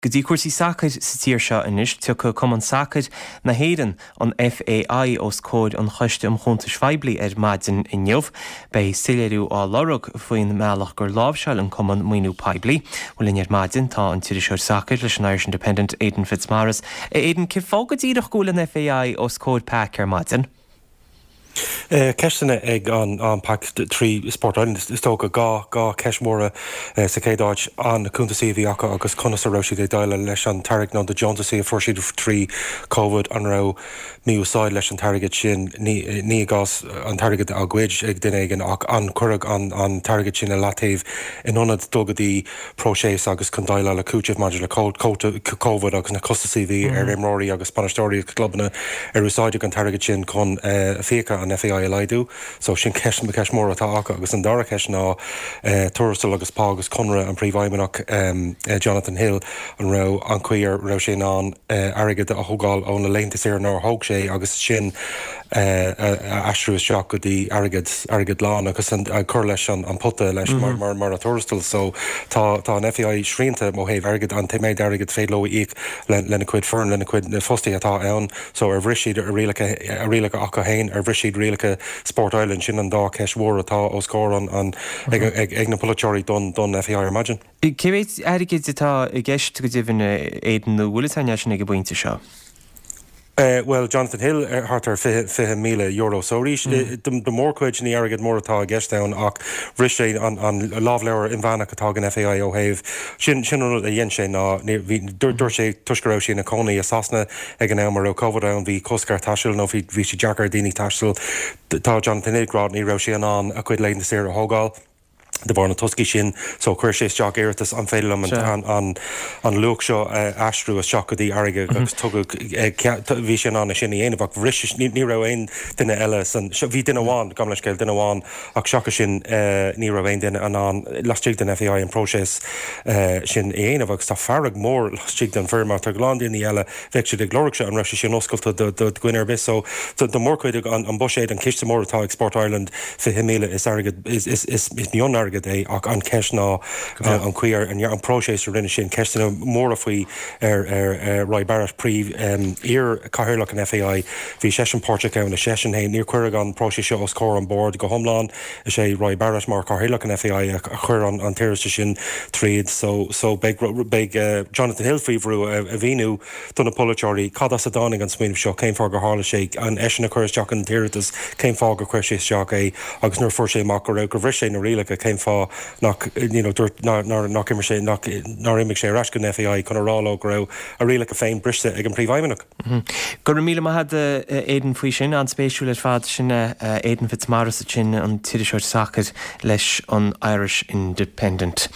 Go dtí cúrsaí sacair sa tír seo anois, tiocfaidh Cumann Sacair na hÉireann, an FAI, os comhair an Choiste um Chuntais Phoiblí ar maidin inniu. Beidh soiléiriú á lorg faoin mbealach gur láimhseáil an Cumann maoiniú poiblí. Bhuel linn ar maidin tá an t-iriseoir sacair leis an Irish Independent, Aidan Fitzmaurice. A Aidan, cén fáth go díreach go bhfuil an FAI os comhair PAC ar maidin? Ceisteanna ag an PAC trí Sport Ireland, is dócha. 2 cheist mhóra sa chéad áit, an na cuntasaí a bhí acu agus conas a raibh siad ag déileáil leis an t-airgead nó na deontasaí a fuair siad trí Covid, an raibh mí-úsáid leis an t-airgead sin, ní i gcás an t-airgead á ghoid ag duine éigin ach an cuireadh an t-airgead sin i leataobh in ionad dul go dtí próiseas agus chun déileáil le cúiteamh maidir le Covid agus na costasaí a bhí ar imreoirí agus bainisteoirí agus clubanna ar úsáideadh an t-airgead sin chun fiacha an FAI a laghdú. So sin ceist ceist mór atá acu agus an dara ceist ná tuarastal agus pá agus conradh an Príomhfheidhmeannach Jonathan Hill an raibh an chaoi ar raibh sé in ann airgead a thógáil ó na laethanta saoire nár thóg sé agus sin a aistriú isteach go dtí airgead, airgead lán agus cur leis an pota leis mar, mar, mar a tuarastal. So tá, tá an FAI srianta ó thaobh airgid, an méid airgid féidir leo a íoc le, lena cuid foireann, lena cuid na fostaithe atá ann. So ar bhris siad a rialacha, a rialacha acu féin, ar bhris siad rialacha Sport Ireland? Sin an dá cheist mhór atá os comhair an, an, ag, ag, ag na polaiteoirí don, don FAI ar maidin. Cé mhéid airgid atá i gceist go deimhin, Aidan, nó bhfuil fhios againn é sin ag an bpointe seo? Bhuel, Jonathan Hill, thart ar €20,000. So arís, do mhórchuid, ní airgead mór atá i gceist ann ach bhris sé an lámhleabhar inmheánach atá ag an FAI ó thaobh, sin sin an rud a dhein sé ná, bhí, dúirt sé toisc go raibh sé ina chónaí i Sasana ag an am a raibh Covid ann, bhí cosc ar thaisteal nó bhí bhí sé deacair ar dhaoine taisteal. Tá Jonathan Hill ag rá ní raibh sé in ann a chuid laethanta saoire a thógáil. De bharr na toscaí sin so chuir sé isteach iarratas an féidir liom an an luach seo a aistriú isteach go dtí airgead agus tugadh bhí sé in ann é sin a dhéanamh ach bhris ní ní raibh aon duine eile san bhí duine amháin gabh mo leithscéal duine amháin ach seachas sin ní raibh aon duine in ann laistigh den FAI an próiseas sin a dhéanamh agus tá fearg mór laistigh den foireann mar tá a lán daoine eile bheadh siad ag lorg seo, an raibh sé sin oscailte do dhuine ar bith. So do mhórchuid an buiséad, an ciste mór atá ag Sport Ireland, 20,000 is airgead, is mion-airgead é ach an cheist ná an chaoi ar, an próiseas a rinne sin, ceisteanna móra faoi ar Roy Barrett, príomh, iar-chathaoirleach an FAI, bhí seisean páirteach ann, is seisean féin, níor cuireadh an próiseas seo os comhair an bord go hiomlán. Is é Roy Barrett mar chathaoirleach an FAI a chuir an t-iarratas sin tríd so so beidh beidh Jonathan Hill faoi bhrú a mhíniú do na polaiteoirí cad as a dtáinig an smaoineamh seo, cén fáth gur tharla sé, an eisean a chuir isteach an t-iarratas, cén fáth gur chuir sé isteach é agus nuair a fuair sé amach go raibh gur bhris sé na rialacha cén fáth nach you know dúirt nár nár nach imir sé nach nár imigh sé ar ais go an FAI chun a rá leo go raibh a rialacha féin briste ag an bPríomhfheidhmeannach. Go raibh míle maith agat a Aidan faoi sin, an-spéisiúil ar fad. Sin Aidan Fitzmaurice ansin, an t-iriseoir sacair leis an Irish Independent.